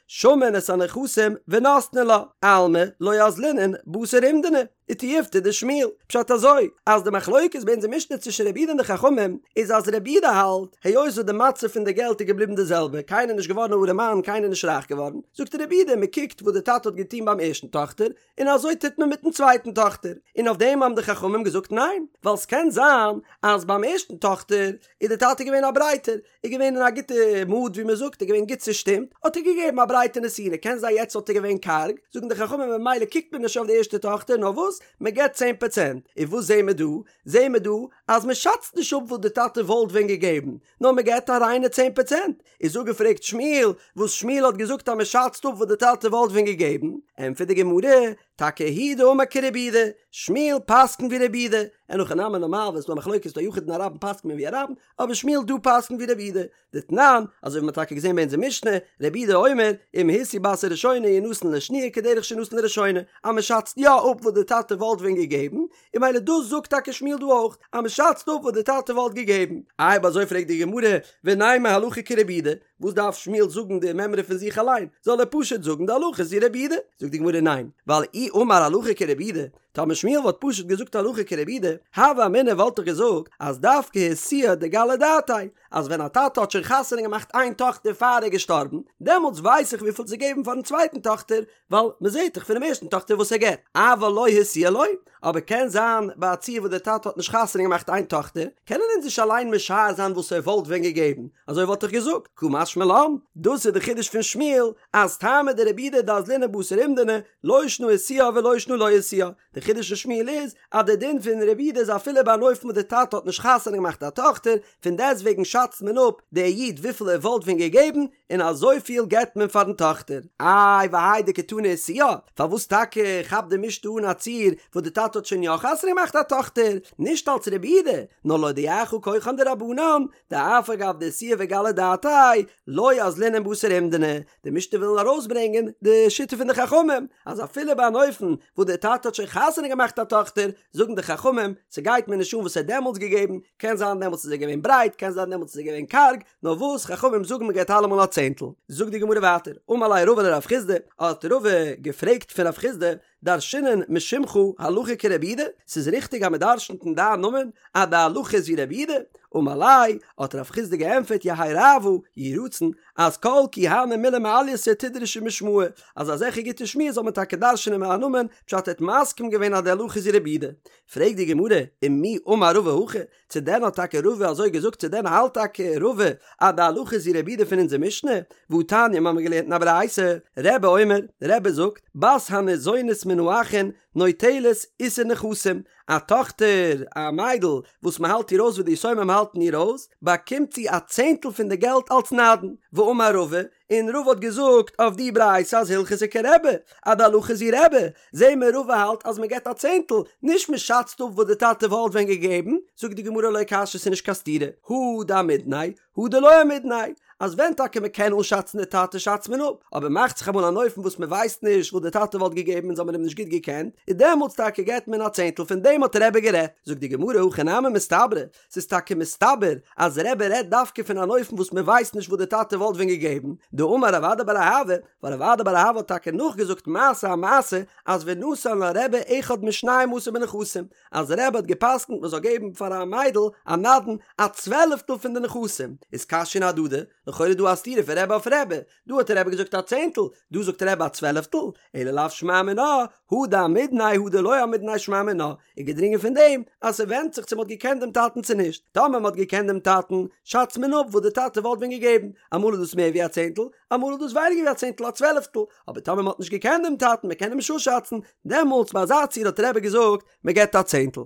S1: שמין את הנכסים ונותנין לה, אלמא לא אזלינן בתר אומדנא, ותיובתא דשמואל, פשט אזוי, אז די מחלוקת ביי אונזער משנה צווישן רבי יהודה און די חכמים, איז אז רבי יהודה האלט, היות וואס די מצב פון די געלט איז געבליבן די זעלבע, קיינער איז נישט געווארן א ארעמאן, קיינער איז נישט רייך געווארן, זאגט רבי יהודה, מען קוקט וואס די טאטע האט געטון ביים ערשטן טאכטער, און אזוי טוט מען מיטן צווייטן טאכטער, און אויף דעם האבן די חכמים געזאגט ניין, ווייל ס'קען זיין אז ביים ערשטן טאכטער איז די טאטע געווען א ברייטער, איז געווען אין א גוטע מוד ווי מען זאגט, איז געווען גוט צושטימט, האט ער געגעבן א ברייטע נתינה, קען זיין יעצט וואלט ער געווען קארג, זאגן די חכמים ממילא קוקט מען נישט אויף די ערשטע טאכטער, נאר וואס, מען געבט צען פראצענט, און וואס זעהן מיר דא? זעהן מיר דא אז מען שאצט נישט אפ וואס די טאטע וואלט ווען געגעבן, נאר מען געבט א ריינע צען פראצענט, איז אפגעפרעגט שמואל, וואס שמואל האט געזאגט אז מען שאצט אפ וואס די טאטע וואלט ווען געגעבן, ענטפערט די גמרא, טאקע הוא דאמר כרבי יהודה, שמואל פסק'נט ווי רבי יהודה, אין הכי נמי נארמאל ווען ס'דא א מחלוקת דא א יחיד און א רבים פסק'נט מען ווי א רבים, אבער שמואל דא פסק'נט ווי רבי יהודה, דתנן, אזוי ווי מ'האט טאקע געזען ביי אונזער משנה, רבי יהודה אומר, אם השיאו בת הראשונה ינתן לשניה כדרך שנתן לראשונה, אז מ'שאצט יא אפ וואס די טאטע וואלט ווען געגעבן, און ממילא דאס זאגט טאקע שמואל דא אויך, אז מ'שאצט אפ וואס די טאטע וואלט געגעבן. איי אויב אזוי פרעגט די גמרא, ונימא הלכה כרבי יהודה, וואס דארף שמואל זאגן די מימרא פון זיך אליין, זאל ער פשוט זאגן די הלכה איז ווי רבי יהודה? זאגט די גמרא ניין, ווייל אי אמר הלכה כרבי יהודה, טאמער שמואל וואלט פשוט געזאגט הלכה כרבי יהודה, הוה אמינא וואלט איך געזאגט אז דווקא השיאה דגלי דעתיה, אז ווען א טאטע האט שוין חתונה געמאכט איין טאכטער פאר ער איז געשטארבן, דעמאלטס ווייס איך וויפיל צו געבן פארן צווייטן טאכטער, ווייל מען זעט דאך פונעם ערשטן טאכטער וואס ער געבט, אבל לא השיאה לא, אבער קען זיין ביי א ציור וואס דער טאטע האט נישט חתונה געמאכט איין טאכטער, קענען אונז נישט אליין משער זיין וואס ער וואלט ווען געגעבן, אזוי וואלט איך געזאגט, קא משמע לן, דאס איז די חידוש פון שמואל, אז טעמא דרבי יהודה דאזלינן בתר אומדנא, לא שנא השיאה ולא שנא לא השיאה. די חידוש פון שמואל איז אז די דין פון רבי יהודה איז אפילו ביי אן אופן וואס די טאטע האט נישט חתונה געמאכט א טאכטער, פון דעסטוועגן שאצט מען אפ דער איד וויפיל ער וואלט ווען געגעבן, און אזויפיל געבט מען פארן טאכטער. איי והאי דקתני איתוה, פארוואס טאקע כאפט די משנה אן א ציור וואס די טאטע האט שוין יא חתונה געמאכט א טאכטער, נישט אלץ רבי יהודה, נאר להודיעך כחן דרבנן, דאף על גב דאיתוה וגלי דעתיה, לא אזלינן בתר אומדנא, די משנה וויל ארויסברענגען די שיטה פון די חכמים, אז אפילו ביי אן אופן וואס דער טאטע האט שוין חתונה געמאכט א טאכטער, זאגן די חכמים, ס'גייט מיר נישט אן וואס ער האט דעמאלטס געגעבן, קען זיין דעמאלטס איז ער געווען ברייט, קען זיין דעמאלטס איז ער געווען קארג, נאר וואס חכמים זאגן מ'געבט אלעמאל א צענטל. זאגט די גמרא ווייטער, אמר ליה רבא לרב חסדא, האט רבא געפרעגט פון רב חסדא, דרשינן משמך הלכה כרבי יהודה, ס'איז ריכטיג אז מ'דרשנ'ט אין דיין נאמען אז די הלכה איז ווי רבי יהודה? אמר ליה, האט רב חסדא געענטפערט יהא רעוא, יהי רצון, אז כל כי הני מילי מעלייתא תדרשו משמאי, אז אזעלכע גוטע שמועות זאל מען טאקע דרש'נען מיין נאמען, פשט ער האט מסכים געווען אז די הלכה איז ווי רבי יהודה. פרעגט די גמרא, ומי אמר רבא הכי, צו דען האט טאקע רבא אזוי געזאגט צו דען האלט טאקע רבא אז די הלכה איז ווי רבי יהודה פון אונזער משנה? והתניא מ'האמיר געלערנט אין א ברייתא, רבי אומר, רבי זאגט, בת הניזונית מן האחין נוטלת עישור נכסים, א טאכטער, א מיידל, וואס מ'האלט איר אויס ווי די יתומים האלטן איר אויס, באקומט זי א צענטל פון די געלט אלס נדן, ואמר רבא, און רבא האט געזאגט אויף די ברייתא אז הלכתא כרבי, אז די הלכה איז ווי רבי, זעהן מיר רבא האלט אז מ'געט א צענטל, נישט מ'שאצט אפ וואס די טאטע וואלט ווען געגעבן, זאגט די גמרא לא קשיא ס'איז נישט קיין סתירה, הא דאמידניה, הא דלא אמידניה, אז ווען טאקע מ'קען אנשאצן די טאטע שאצט מען אפ, אבער מאכט זיך אמאל אן אופן וואס מ'ווייסט נישט וואס די טאטע וואלט געגעבן אונז האמיר אים נישט גוט געקענט, איז דעמאלטס טאקע געט מען א צענטל פון דעם האט רבי גערעדט, זאגט די גמרא הכי נמי מסתברא, ס'איז טאקע מסתבר אז רבי רעדט דווקא פון אן אופן וואס מ'ווייסט נישט וואס די טאטע וואלט ווען געגעבן, דאמר רב אדא בר אהבה, ווייל רב אדא בר אהבה האט טאקע נאכגעזאגט מעשה א מעשה אז ונתן לה רבי אחד משנים עשר בנכסים, אז רבי האט גע'פסק'נט מ'זאל געבן פאר א מיידל א נדן א צוועלעפטל פון די נכסים, איז קשיין אהדדי, לכאורה דא א סתירה פון רבי אויף רבי, דא האט רבי געזאגט א צענטל, דא זאגט רבי א צוועלעפטל, אלא לאו שמע מינה, הא דאמידניה הא דלא אמידניה שמע מינה, איז געדרינגען פון דעם אז ס'ווענדט זיך צו מ'האט געקענט דעם טאטן צו נישט, טאמער מ'האט געקענט דעם טאטן, שאצט מען אפ וואס די טאטע וואלט ווען געגעבן, אמאל איז דאס מער ווי א צענטל, אמאל איז דאס ווייניגער ווי א צענטל א צוועלעפטל, אבער טאמער מ'האט נישט געקענט דעם טאטן, מ'קען אים נישט אפשאצן, דעמאלטס ביי אזא ציור האט רבי געזאגט, מ'געבט א צענטל.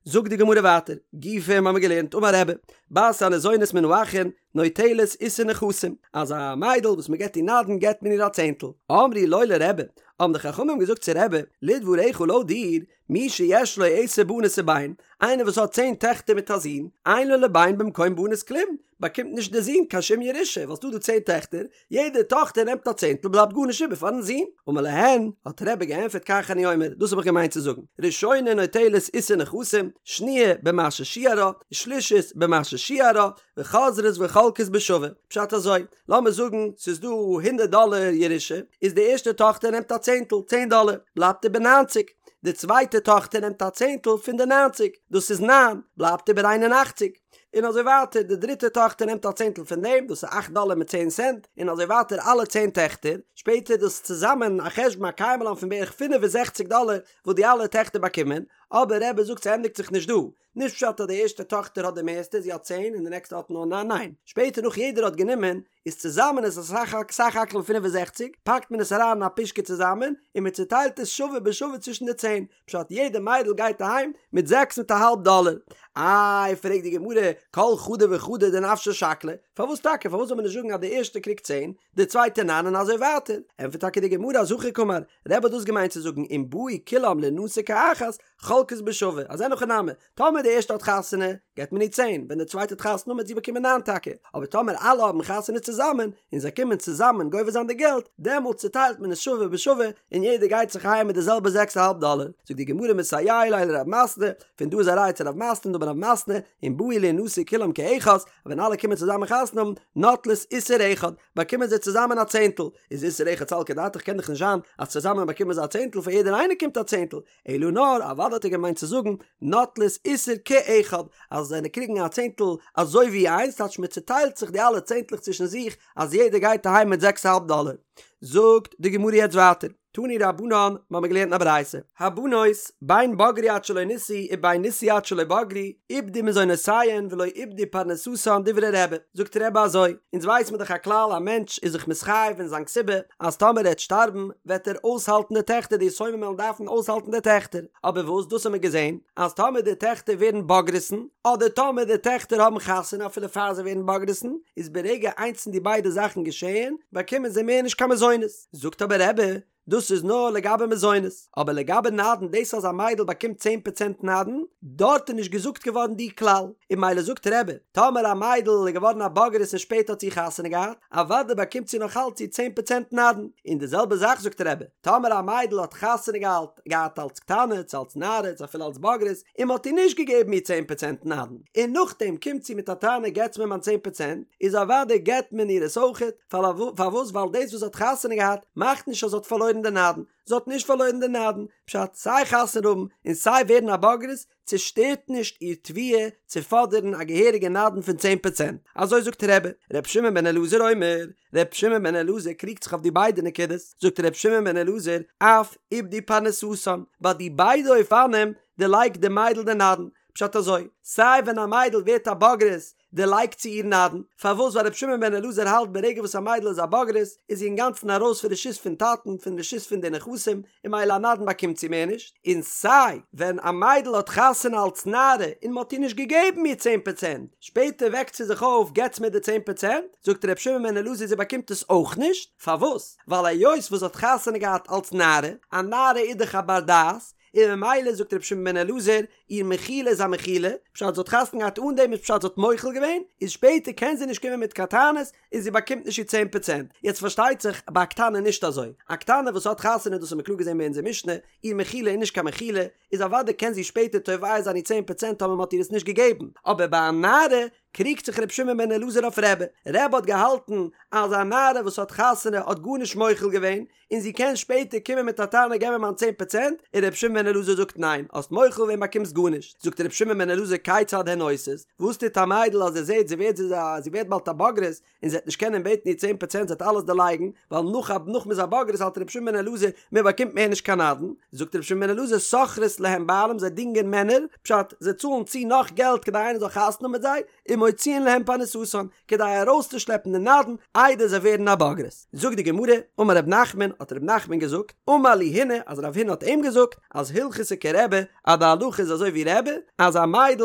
S1: זאגט די גמרא ווייטער, גופא האמיר געלערנט אמר רבי, בת הניזונית מן האחין נוטלת עישור נכסים, אז א מיידל וואס מען געבט איר נדן געבט מען איר א צענטל, אמרו לו לרבי, האבן די חכמים געזאגט צו רבי, לדבריך לויט דיר, מי שיש לו עשר בנות ובן, איינער וואס האט צען טעכטער מיט א זון, אין לו לבן במקום בנות כלום, באקומט נישט דער זון קיין שום ירושה, ווייל ס'דא דא צען טעכטער, יעדע טאכטער נעמט א צענטל בלייבט גארנישט איבער פארן זון. אמר להן, האט רבי געענטפערט כך אני אומר, דאס האב איך געמיינט צו זאגן, ראשונה נוטלת עישור נכסים, שניה במה ששיערה, שלישית במה ששיערה, וחוזרות וחולקות בשווה. פשט אזוי, לאמיר זאגן ס'איז דא הונדערט דאלער ירושה, איז די ערשטע טאכטער נעמט א צענטל, צען דאלער, בלייבט איבער ניינציג. די צווייטע טאכטער נעמט א צענטל פון די ניינציג, דאס איז ניין, בלייבט איבער איין און אכציג. און אזוי ווייטער, די דריטע טאכטער נעמט א צענטל פון דעם, דאס איז אכט דאלער מיט צען סענט, און אזוי ווייטער אלע צען טעכטער, שפעטער דאס צוזאמען א חשבון א קיימא לן פון בערך פינף און זעכציק דאלער וואס די אלע טעכטער באקומען, אבער רבי זאגט ס'ענדיגט זיך נישט דא, נישט פשט אז די ערשטע טאכטער האט די מערסטע, זי האט צען און די נעקסטע האט נאר ניין, ניין, שפעטער נאך יעדער האט גענומען, איז צוזאמען איז עס סך הכל 65, פאקט מען עס אריין אין א פושקע צוזאמען, און מען צוטיילט עס שווה בשווה צווישן די צען, פשט יעדע מיידל גייט אהיים מיט זעקס מיט א האלב דאלער. איי פרעגט די גמרא, כל חדא וחדא דנפשה שקלה, פארוואס טאקע, פארוואס זאל מען נישט זאגן אז די ערשטע קריגט צען, די צווייטע ניין און אזוי ווייטער, ענטפערט טאקע די גמרא אז הכי קאמר, רבי האט דאס געמיינט צו זאגן אם באו כולם לינשא כאחת, חולקות בשווה, אז אין הכי נמי, טאמער די ערשטע האט חתונה, געט מען איר צען, ווען די צווייטע האט חתונה וועט זי באקומען ניין טאקע, אבער טאמער אלע האבן חתונה צוזאמען, און זיי קומען צוזאמען גובה זיין די געלט, דעמאלטס צוטיילט מען עס שווה בשווה, און יעדער גייט זיך אהיים מיט די זעלבע זעקס א האלב דאלער. זאגט די גמרא מסייע ליה לרב מתנה, פון דא איז א ראיה צו רב מתנה, דאמר רב מתנה, אם באו לינשא כולם כאחת, ווען אלע קומען צוזאמען חתונה האבן, נוטלות עישור אחד, באקומען זיי צוזאמען א צענטל, איז עישור אחד סלקא דעתך קען דאך נישט זיין אז צוזאמען באקומען זיי א צענטל פאר יעדער איינער קומט א צענטל, אלא נאר אוודאי האט ער געמיינט צו זאגן נוטלות עישור כאחד אז זיי קריגן א צענטל אזוי ווי איינס טייטש מען צוטיילט זיך די אלע צענטלעך צווישן זיך אז יעדער גייט אהיים מיט זעקס אהאלב דאלער. זאגט די גמרא יעצט ווייטער. תנו רבנן, מ'האמיר געלערנט אין א ברייתא, הבנות, בין בגרו עד שלא נישאו ובין נישאו עד שלא בגרו, איבדו מזונותיהן ולא איבדו פרנסתן דברי רבי, זאגט רבי אזוי, אונז ווייס מיר דאך א כלל א מענטש איז זיך מתחייב אין זיין כתובה אז טאמער ער וועט שטארבן וועט ער אויסהאלטן די טעכטער די יתומים וועלן דארפן אויסהאלטן די טעכטער, אבער וואס דאס האמיר געזען אז טאמער די טעכטער ווערן בוגרת'ן אדער טאמער די טעכטער האבן חתונה אפילו פאר זיי ווערן בוגרת'ן איז ברגע איינס פון די ביידע זאכן געשעהן באקומען זיי מער נישט קיין מזונות, זאגט אבער רבי דאס איז נאר לגבי מזונות, אבער לגבי נדן דאס אז א מיידל באקומט צען פראצענט נדן, דארט איז נישט געזאגט געווארן די כלל, און ממילא זאגט רבי, טאמער א מיידל איז געווארן א בוגרת און שפעטער האט זי חתונה געהאט, אוודאי באקומט זי נאך אלץ איר צען פראצענט נדן, און די זעלבע זאך זאגט רבי, טאמער א מיידל האט חתונה געהאט געהאט אלץ קטנה, צו אלץ נערה, צו אפילו אלץ בוגרת, און מען האט איר נישט געגעבן איר צען פראצענט נדן, און נאכדעם קומט זי מיט א טענה געטס מיר מיין צען פראצענט, איז אוודאי געט מען איר עס אויכעט, פארוואס ווייל דאס וואס זי האט חתונה געהאט מאכט נישט אז זי האט פארלוירן די נדן, זי האט נישט פארלוירן די נדן, פשט סיי חתונה האבן און סיי ווערן א בוגרת צושטערט נישט איר תביעה צו פאדערן א געהעריגע נדן פון צען פראצענט, אזוי זאגט רבי, ר' שמעון בן אלעזר אומר, ר' שמעון בן אלעזר קריגט זיך אויף די ביידע נקודות, זאגט ר' שמעון בן אלעזר, אף איבדו פרנסתן, ביי די ביידע אופנים דערלייגט די מיידל די נדן, פשט אזוי, סיי ווען א מיידל ווערט א בוגרת דערלייגט זי איר נדן, פארוואס ווייל רבי שמעון בן אלעזר האלט ברגע וואס א מיידל איז א בוגרת איז זי אינגאנצן ארויס פון רשות פון טאטן פון רשות פון די נכסים און ממילא א נדן באקומט זי מער נישט, און סיי ווען א מיידל האט חתונה אלץ נערה און מ'האט איר נישט געגעבן איר צען פראצענט, שפעטער וועקט זי זיך אויף געטס מיר די צען פראצענט, זאגט רבי שמעון בן אלעזר זי באקומט עס אויך נישט, פארוואס? ווייל היות וואס זי האט חתונה געהאט אלץ נערה, א נערה איז דאך א בר דעת, און ממילא זאגט רבי שמעון בן אלעזר, איר מחילה איז א מחילה, פשט זי האט חתונה געהאט אן דעם איז פשט זי האט מוחל געווען, איז שפעטער קען זי נישט קומען מיט קיין טענות, און זי באקומט נישט איר צען פראצענט. יעצט פארשטייט זיך ביי א קטנה נישט אזוי, א קטנה וואס האט חתונה דאס האט מען קלאר געזען ביי אונזער משנה, איר מחילה איז נישט קיין מחילה, איז אוודאי קען זי שפעטער תובע זיין איר צען פראצענט טאמער מען האט איר עס נישט געגעבן, אבער ביי א נערה קריגט זיך רבי שמעון בן אלעזר אויף רבי, רבי האט געהאלטן אז א נערה וואס האט חתונה האט גארנישט מוחל געווען, און זי קען שפעטער קומען מיט א טענה געב מיר מיין צען פראצענט, און רבי שמעון בן אלעזר זאגט ניין, האסט מוחל געווען באקומסט גארנישט, זאגט רבי שמעון בן אלעזר כיצד הן עושות, וואס טוט א מיידל אז זי זעט זי ווערט זי ווערט באלד א בוגרת, און זי וועט נישט קענען בעטן איר צען פראצענט זי וועט אלעס דערלייגן, ווייל נאך א נאך מ'איז א בוגרת האלט רבי שמעון בן אלעזר מען באקומט מער נישט קיין נדן, זאגט רבי שמעון בן אלעזר שוכרות להם בעלים זיי דינגען מענער, פשט, זיי צאלן צו נאך געלט כדי איינער זאל חתונה האבן מיט זיי, ומוציאין להם פרנסתן, כדי ארויסצושלעפן די נדן איידער זיי ווערן א בוגרת. זאגט די גמרא, אמר רב נחמן, האט רב נחמן געזאגט, אמר לי הונא, אז רב הונא האט אים געזאגט, אז הלכתא כרבי, אז די הלכה איז אזוי ווי רבי, אז א מיידל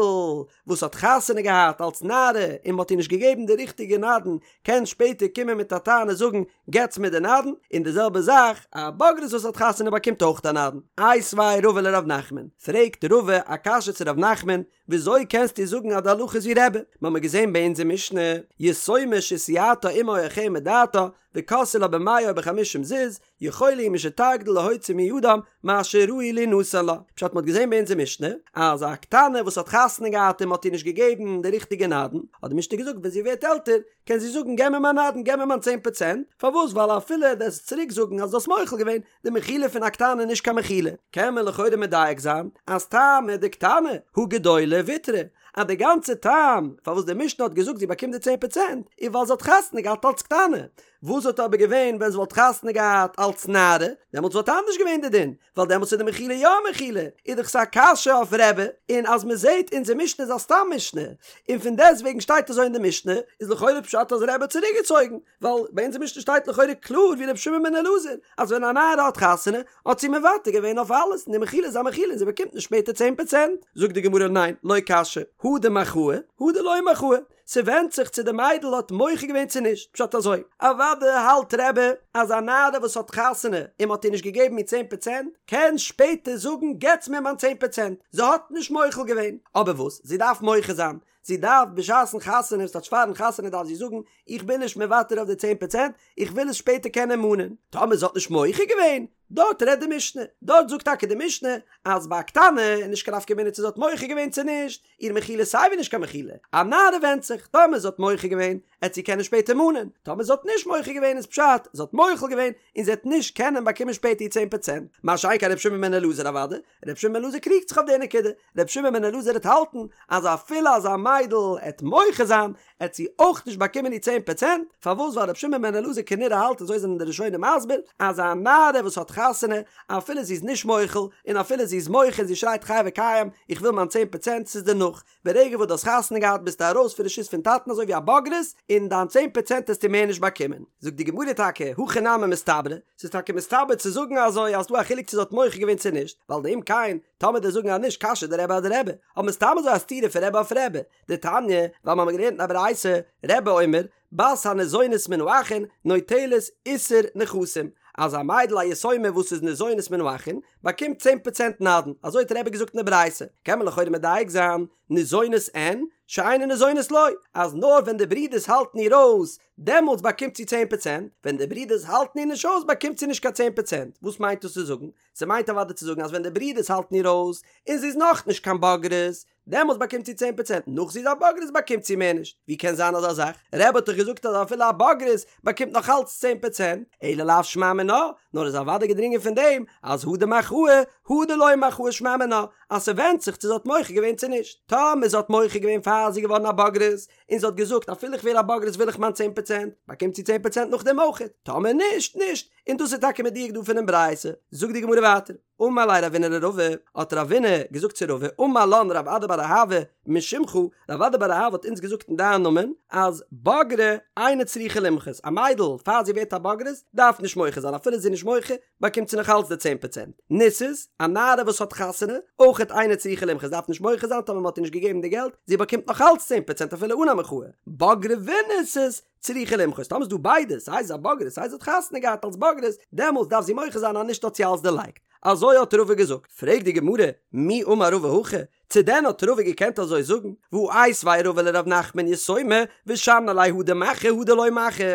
S1: וואס האט חתונה געהאט אלס נערה און מ'האט איר נישט געגעבן די ריכטיגע נדן, קען שפעטער קומען מיט א טענה זאגן, געטס מיר די נדן, און די זעלבע זאך, א בוגרת וואס האט חתונה באקומט אויך א נדן. איתיביה רבא לרב נחמן, פרעגט רבא א קשיא צו רב נחמן, וויאזוי קענסטו זאגן אז די הלכה איז ווי רבי? מ'האמיר געזען ביי אונזער משנה, יתומה שהסיעתה אמה או אחיה מדעתה, וכרסו לה במאה או בחמישים זוז, יכולה היא משתגדיל להוציא מידם מה שראוי לינתן לה. פשט מ'האט געזען ביי אונזער משנה, אז א קטנה וואס האט חתונה געהאט און מ'האט איר נישט געגעבן די ריכטיגע נדן, האט די משנה געזאגט ווען זי ווערט עלטער, קען זי זאגן געב מיר מיין נדן, געב מיר מיין צען פראצענט, פארוואס ווייל אפילו וועסט צוריק זאגן אז דו האסט מוחל געווען, די מחילה פון א קטנה איז נישט קיין מחילה, קען מען לכאורה מדייק זיין אז טעמא דקטנה הא גדולה ויתרה, אז די גאנצע טעם פארוואס די משנה האט געזאגט זי באקומט די צען פראצענט איז ווייל זי האט חתונה געהאט אלץ קטנה, וואס וואלט אבער געווען ווען זי וואלט חתונה געהאט אלץ נערה, דעמאלטס וואלט אנדערש געווען די דין, ווייל דעמאלטס איז די מחילה יא א מחילה, איז דאך ס'א קשיא אויף רבי, און אז מ'זעט אונזער משנה איז א סתם משנה, און פון דעסט וועגן שטייט אזוי אין די משנה, איז לכאורה פשט אז רבי האט צוריק געצויגן, ווייל ביי אונזער משנה שטייט לכאורה קלאר ווי רבי שמעון בן אלעזר, אז ווען א נערה האט חתונה, האט זי מוותר געווען אויף אלעס, און די מחילה איז א מחילה און זי באקומט נישט שפעטער צען פראצענט. זאגט די גמרא ניין, לא קשיא, הא דמחאה, הא דלא מחאה, ס'ווענדט זיך צו די מיידל האט מוחה געווען צו נישט, פשט אזוי, אוודאי האלט רבי אז א נערה וואס האט חתונה און מ'האט איר נישט געגעבן איר צען פראצענט, קען שפעטער זאגן געטס מיר מיין צען פראצענט, זי האט נישט מוחל געווען, אבער וואס, זי דארף מוחה זיין, זי דארף בשעת'ן חתונה, ס'טייטש פאר'ן חתונה דארף זי זאגן, איך בין נישט מוותר אויף די צען פראצענט, איך וויל עס שפעטער קענען מאנען. טאמער זי האט נישט מוחה געווען, דארט רעדט די משנה, דארט זאגט טאקע די משנה אז ביי א קטנה איז נישט קיין נפקא מינה צו זי האט מוחה געווען צו נישט, איר מחילה איז סייווי נישט קיין מחילה, א נערה ווענדט זיך, טאמער זי האט מוחה געווען, עט זי קענען שפעטער מאנען, טאמער זי האט נישט מוחה געווען איז פשט, זי האט מוחל געווען, און זי עט נישט קענען באקומען שפעטער איר צען פראצענט, מה שאין כן ר' שמעון בן אלעזר אוודאי, ר' שמעון בן אלעזר קריגט זיך אויף די נקודה, ר' שמעון בן אלעזר עט האלטן אז אפילו אז א מיידל עט מוחה זיין עט זי אויך נישט באקומען איר צען פראצענט, פארוואס ווייל ר' שמעון בן אלעזר כנראה האלט אזוי זענען די ראשונים מסביר אז א נערה וואס האט חתונה. חתונה, אפילו זי איז נישט מוחל, און אפילו זי איז מוחה און זי שרייט חי וקיים, איך וויל מיין צען פראצענט, ס'איז דערנאך. ברגע וואס דו האסט חתונה געהאט ביסטו ארויס פון רשות פון טאטן אזוי ווי א בוגרת, און דיין צען פראצענט העסטו מער נישט באקומען. זאגט די גמרא טאקע, הכי נמי מסתברא, ס'איז טאקע מסתבר צו זאגן אזוי אז ס'דא א חילוק צו זי האט מוחה געווען צו נישט, ווייל דאם כן, טאמער דו'סט זאגן אז נישט קשיא דרבי אדרבי, האבן מיר סתם אזוי א סתירה פון רבי אויף רבי, דתניא, ווייל מ'האמיר געלערנט אין א ברייתא, רבי אומר, בת הניזונת מן האחין נוטלת עישור נכסים, אז א מיידל א יתומה וואס איז ניזונת מן האחין באקומט צען פראצענט נדן, אזוי האט רבי געזאגט אין די ברייתא, קען מען לכאורה מדייק זיין, ניזונת אין, שאינה ניזונת לא, אז נאר ווען די ברידערס האלטן איר אויס, דעמאלטס באקומט זי צען פראצענט, ווען די ברידערס האלטן איר נישט אויס באקומט זי נישט קיין צען פראצענט, וואס מיינט דאס צו זאגן? ס'מיינט אוודאי צו זאגן אז ווען די ברידערס האלטן איר אויס, און זי איז נאכנישט קיין בוגרת, דעמאלטס באקומט זי צען פראצענט, נאך זי איז א בוגרת באקומט זי מער נישט, ווי קען זיין אזא זאך? רבי האט דאך געזאגט אז אפילו א בוגרת באקומט נאך אלץ צען פראצענט, אלא לאו שמע מינה, נאר איז אוודאי געדרינגען פון דעם אז הא דמחאה הא דלא מחאה שמע מינה, אז ס'ווענדט זיך צו זי האט מוחה געווען צו נישט, טאמער זי האט מוחה געווען פאר זי איז געווארן א בוגרת, און זי האט געזאגט אפילו איך ווער א בוגרת וויל איך מיין צען פראצענט, באקומט זי צען פראצענט נאכדעם אויכעט, טאמער נישט, נישט, און דאס איז טאקע מדויק דא פונעם ברייתא, זאגט די גמרא ווייטער. אמר ליה רבינא לרבא, האט רבינא געזאגט צו רבא, אמר לן רב אדא בר אהבה משמך, רב אדא בר אהבה האט אונז געזאגט אין דיין נאמען, אז בגרה אינה צריכה למחות, א מיידל פאר זי ווערט א בוגרת דארף נישט מוחה זיין, אפילו זי איז נישט מוחה באקומט זי נאך אלץ די צען פראצענט, נישאת, א נערה וואס האט חתונה, אויכעט אינה צריכה למחות דארף נישט מוחה זיין טאמער מען האט איר נישט געגעבן די געלט, זי באקומט נאך אלץ צען פראצענט אפילו אן א מחאה, בגרה ונישאת, צריכה למחות, טאמער איז דא ביידע, סיי זי איז א בוגרת סיי זי האט חתונה געהאט אלס בוגרת, דעמאלטס דארף זי מוחה זיין אז נישט האט זי אלס דערלייגט. אזוי האט רבא געזאגט. פרעגט די גמרא, מי אמר רבא הכי? צו דען האט רבא געקענט אזוי זאגן? והא איתיביה רבא לר' נחמן יתומה ושני ליה הא דמחיא הא דלא מחיא.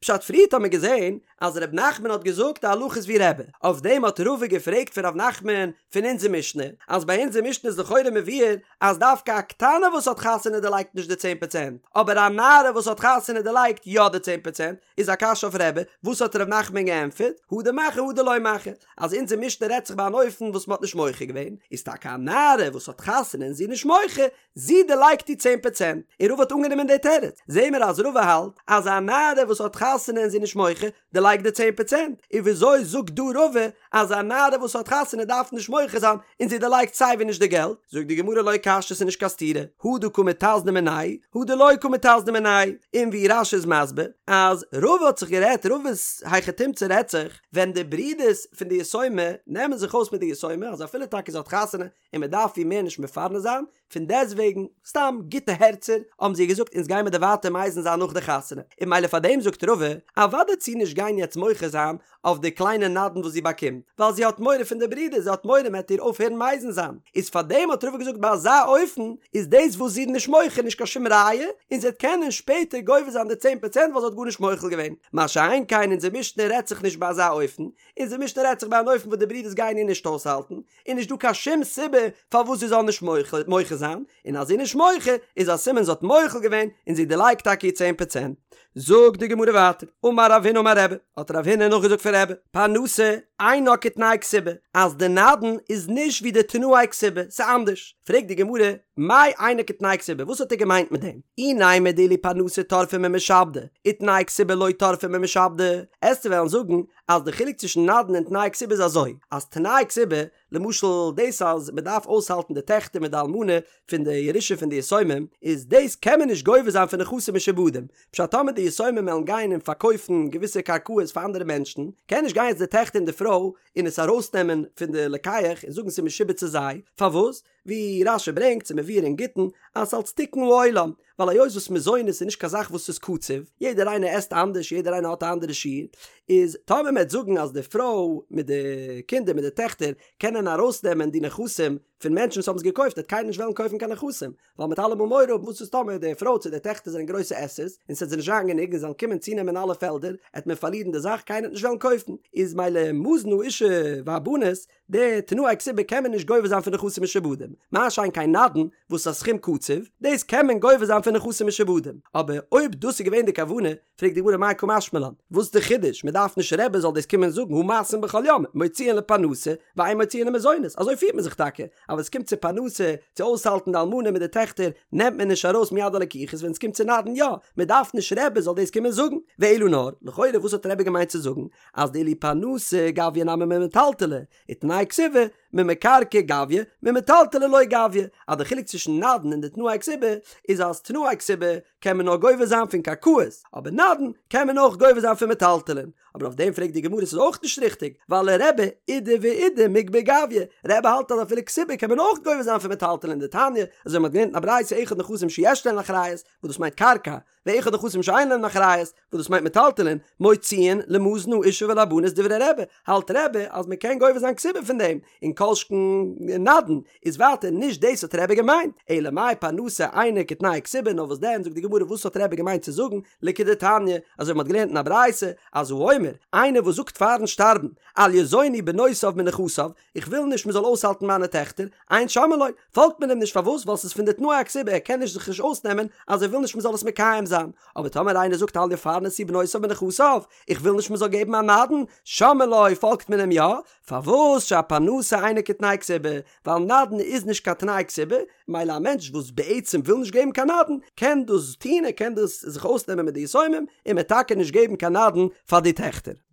S1: פשט פריערט האט מען געזען אז ר' נחמן האט געזאגט די הלכה איז ווי רבי, אויף דעם האט רבא געפרעגט פון ר' נחמן פון אונזער משנה, אז ביי אונזער משנה איז לכאורה מבואר אז דווקא א קטנה וואס האט חתונה דערלייגט נישט די צען פראצענט, אבער א נערה וואס האט חתונה דערלייגט יא די צען פראצענט, איז א קשיא אויף רבי, וואס האט ר' נחמן געענטפערט, הא דמחיא הא דלא מחיא, אז אונזער משנה רעדט זיך ביי אן אופן וואס מען האט נישט מוחה געווען, איז טאקע א נערה וואס האט חתונה און זי איז נישט מוחה, זי דערלייגט די צען פראצענט, און רבא האט אנגענומען די תירוץ, זעהן מיר אז רבא האלט אז א נערה וואס האט חתונה און זי איז נישט מוחה, דערלייגט די צען פראצענט, און וויאזוי זאגט דא רבא אז א נערה וואס האט חתונה דארף נישט מוחה זיין און זי דערלייגט סיי ווי נישט די געלט, זאגט די גמרא לא קשיא ס'איז נישט קיין סתירה, הא דקא מיתזנא מינייהו, הא דלא קא מיתזנא מינייהו, און ווי רש"י איז מסביר אז רבא האט זיך גערעדט רבא'ס היכי תמצא רעדט זיך ווען די ברידערס פון די יתומה נעמען זיך אויס מיט די יתומה אז אפילו טאקע זי האט חתונה און מען דארף איר מער נישט מפרנס זיין, פון דעסטוועגן, סתם גוטע הערצער, האבן זיי געזאגט אונז גיימער דיר ווייטער מזין זיין נאך די חתונה, און ממילא פאר דעם זאגט רבא, אוודאי וועט זי נישט גיין יעצט מוחה זיין אויף די קליינע נדן וואס זי באקומט, ווייל זי האט מורא פון די ברידער, זי האט מורא מען וועט איר אויפהערן מזין זיין, איז פאר דעם האט רבא געזאגט ביי אזא אופן איז דאס וואס זי איז נישט מוחה נישט קיין שום ראיה, און זי וועט קענען שפעטער גובה זיין די צען פראצענט ווייל זי האט גארנישט מוחל געווען, מה שאין כן אונזער משנה רעדט זיך נישט ביי אזא אופן, אונזער משנה רעדט זיך ביי אן אופן וואס די ברידערס גייען איר נישט אויסהאלטן, איז נישט דא קיין שום סיבה פארוואס זי זאל נישט מוחה זיין, און אז זי איז נישט מוחה איז א סימן זי האט מוחל געווען און זי דערלייגט טאקע איר צען פראצענט. זאגט די גמרא ווייטער, אמר רב הונא אמר רבי, האט רב הונא נאכגעזאגט פון רבי, פרנסה אינה כתנאי כתובה, אז די נדן איז נישט ווי די תנאי כתובה, ס'איז אנדערש. פרעגט די גמרא, מאי אינה כתנאי כתובה, וואס האט ער געמיינט מיט דעם? אי נימא דאילו פרנסה טרפא ממשעבדי, ותנאי כתובה לא טרפא ממשעבדי, עסטו וועלן זאגן אז די חילוק צווישן נדן און תנאי כתובה איז אזוי, אז תנאי כתובה, למשל דאס אז מען דארף אויסהאלטן די טעכטער מיט די אלמנה פון די ירושה פון די יתומים, איז דאס קען מען נישט גובה זיין פון נכסים משועבדים, פשט טאמער די יתומים וועלן גיין און פארקויפן געוויסע קרקעות פאר אנדערע מענטשן, קען נישט גיין יעצט די טעכטער און די פרוי און עס ארויסנעמען פון די לוקח און זאגן ס'איז משועבד צו זיי, פארוואס? ווי רש"י ברענגט ס'איז מבואר אין גיטין אז ס'אלץ תיקון העולם, ווייל היות וואס מזונות איז נישט קיין זאך וואס איז קצוב, יעדער איינער עסט אנדערש יעדער איינער האט א אנדערע שיעור, איז טאמער מ'עט זאגן אז די פרוי מיט די קינדער מיט די טעכטער קענען ארויסנעמען די נכסים פון מענטשן וואס האבן עס געקויפט וועט קיינער נישט וועלן קויפן קיין נכסים, ווייל מ'עט אלעמאל מורא האבן וואס איז טאמער די פרוי צו די טעכטער זענען גרויסע עסערס און ס'עט זיי נישט זיין גענוג און זיי וועלן קומען צונעמען אלע פעלדער עט מען פארלירן די זאך קיינער עט נישט וועלן קויפן, איז מילא מזון האשה והבנות די תנאי כתובה קען מען נישט גובה זיין פון נכסים משועבדים, מה שאין כן נדן וואס איז א סכום קצוב, דאס קען מען גובה זיין. זיין פון נכסים משועבדים, אבער אויב דאס איז געווען די כוונה, פרעגט די גמרא מאי קא משמע לן, וואס איז די חידוש, מען דארף נישט רבי זאל דאס קומען זאגן הא מעשים בכל יום, מוציאין לפרנסה, ואין מוציאין למזונות, אזוי פירט מען זיך טאקע, אז ווען עס קומט צו פרנסה, צו אויסהאלטן די אלמנה מיט די טעכטער, נעמט מען נישט ארויס מיד הלקוחות, ווען עס קומט צו נדן יא, מען דארף נישט רבי זאל דאס קומען זאגן, ואלא נאר, לכאורה וואס האט רבי געמיינט צו זאגן, אז דאילו פרנסה גביא נמי ממטלטלי, ותנאי כתובה, ממקרקעי גביא, ממטלטלי לא גביא, אז די חילוק צווישן נדן און די תנאי כתובה, איז אז תנאי כתובה קען מען נאר גובה זיין פון קרקעות, אבער נדן קען מען אויך גובה זיין פון מטלטלין. אבער אויף דעם פרעגט די גמרא ס'איז אויך נישט ריכטיג, ווייל לרבי אידי ואידי מיגבא גביא, רבי האלט אז אפילו כתובה קען מען אויך גובה זיין פון מטלטלין דתניא, אזוי ווי מ'האט געלערנט אין א ברייתא אחד נכסים שיש להן אחריות, וואס דאס מיינט קרקע, ואחד נכסים שאין להן אחריות, וואס דאס מיינט מטלטלין, מוציאין למזון האשה ולבנות דברי רבי, האלט רבי אז מען קען גובה זיין כתובה פון דעם, און כל שכן נדן, איז ווייטער נישט דאס האט רבי געמיינט, אלא מאי פרנסה אינה כתנאי כתובה, נאר וואס דען זאגט די גמרא וואס האט רבי געמיינט צו זאגן, לכדתניא, אזוי ווי מען האט געלערנט אין א ברייתא, אז האומר, איינער וואס זאגט פארן שטארבן, אל יזונו בנותיו מנכסיו, איך וויל נישט מען זאל אויסהאלטן מיינע טעכטער, אין שומעין לו, פאלגט מען אים נישט פארוואס ווייל ס'איז פון די תנאי הכתובה ער קען נישט זיך נישט אויסנעמען אז ער וויל נישט מען זאל עס מקיים זיין, אבער טאמער איינער זאגט אל יפרנסו בנותיו מנכסיו, איך וויל נישט מען זאל געבן א נדן, שומעין לו, פאלגט מען אים יא, פארוואס שהפרנסה אינה כתנאי כתובה, ווייל נדן איז נישט קיין תנאי כתובה, מילא א מענטש וואס בעצם וויל נישט געבן קיין נדן, קען דאס טון ער קען דאס זיך אויסנעמען מיט די יתומים, און מען טאקע נישט געבן קיין נדן פאר די טעכטער.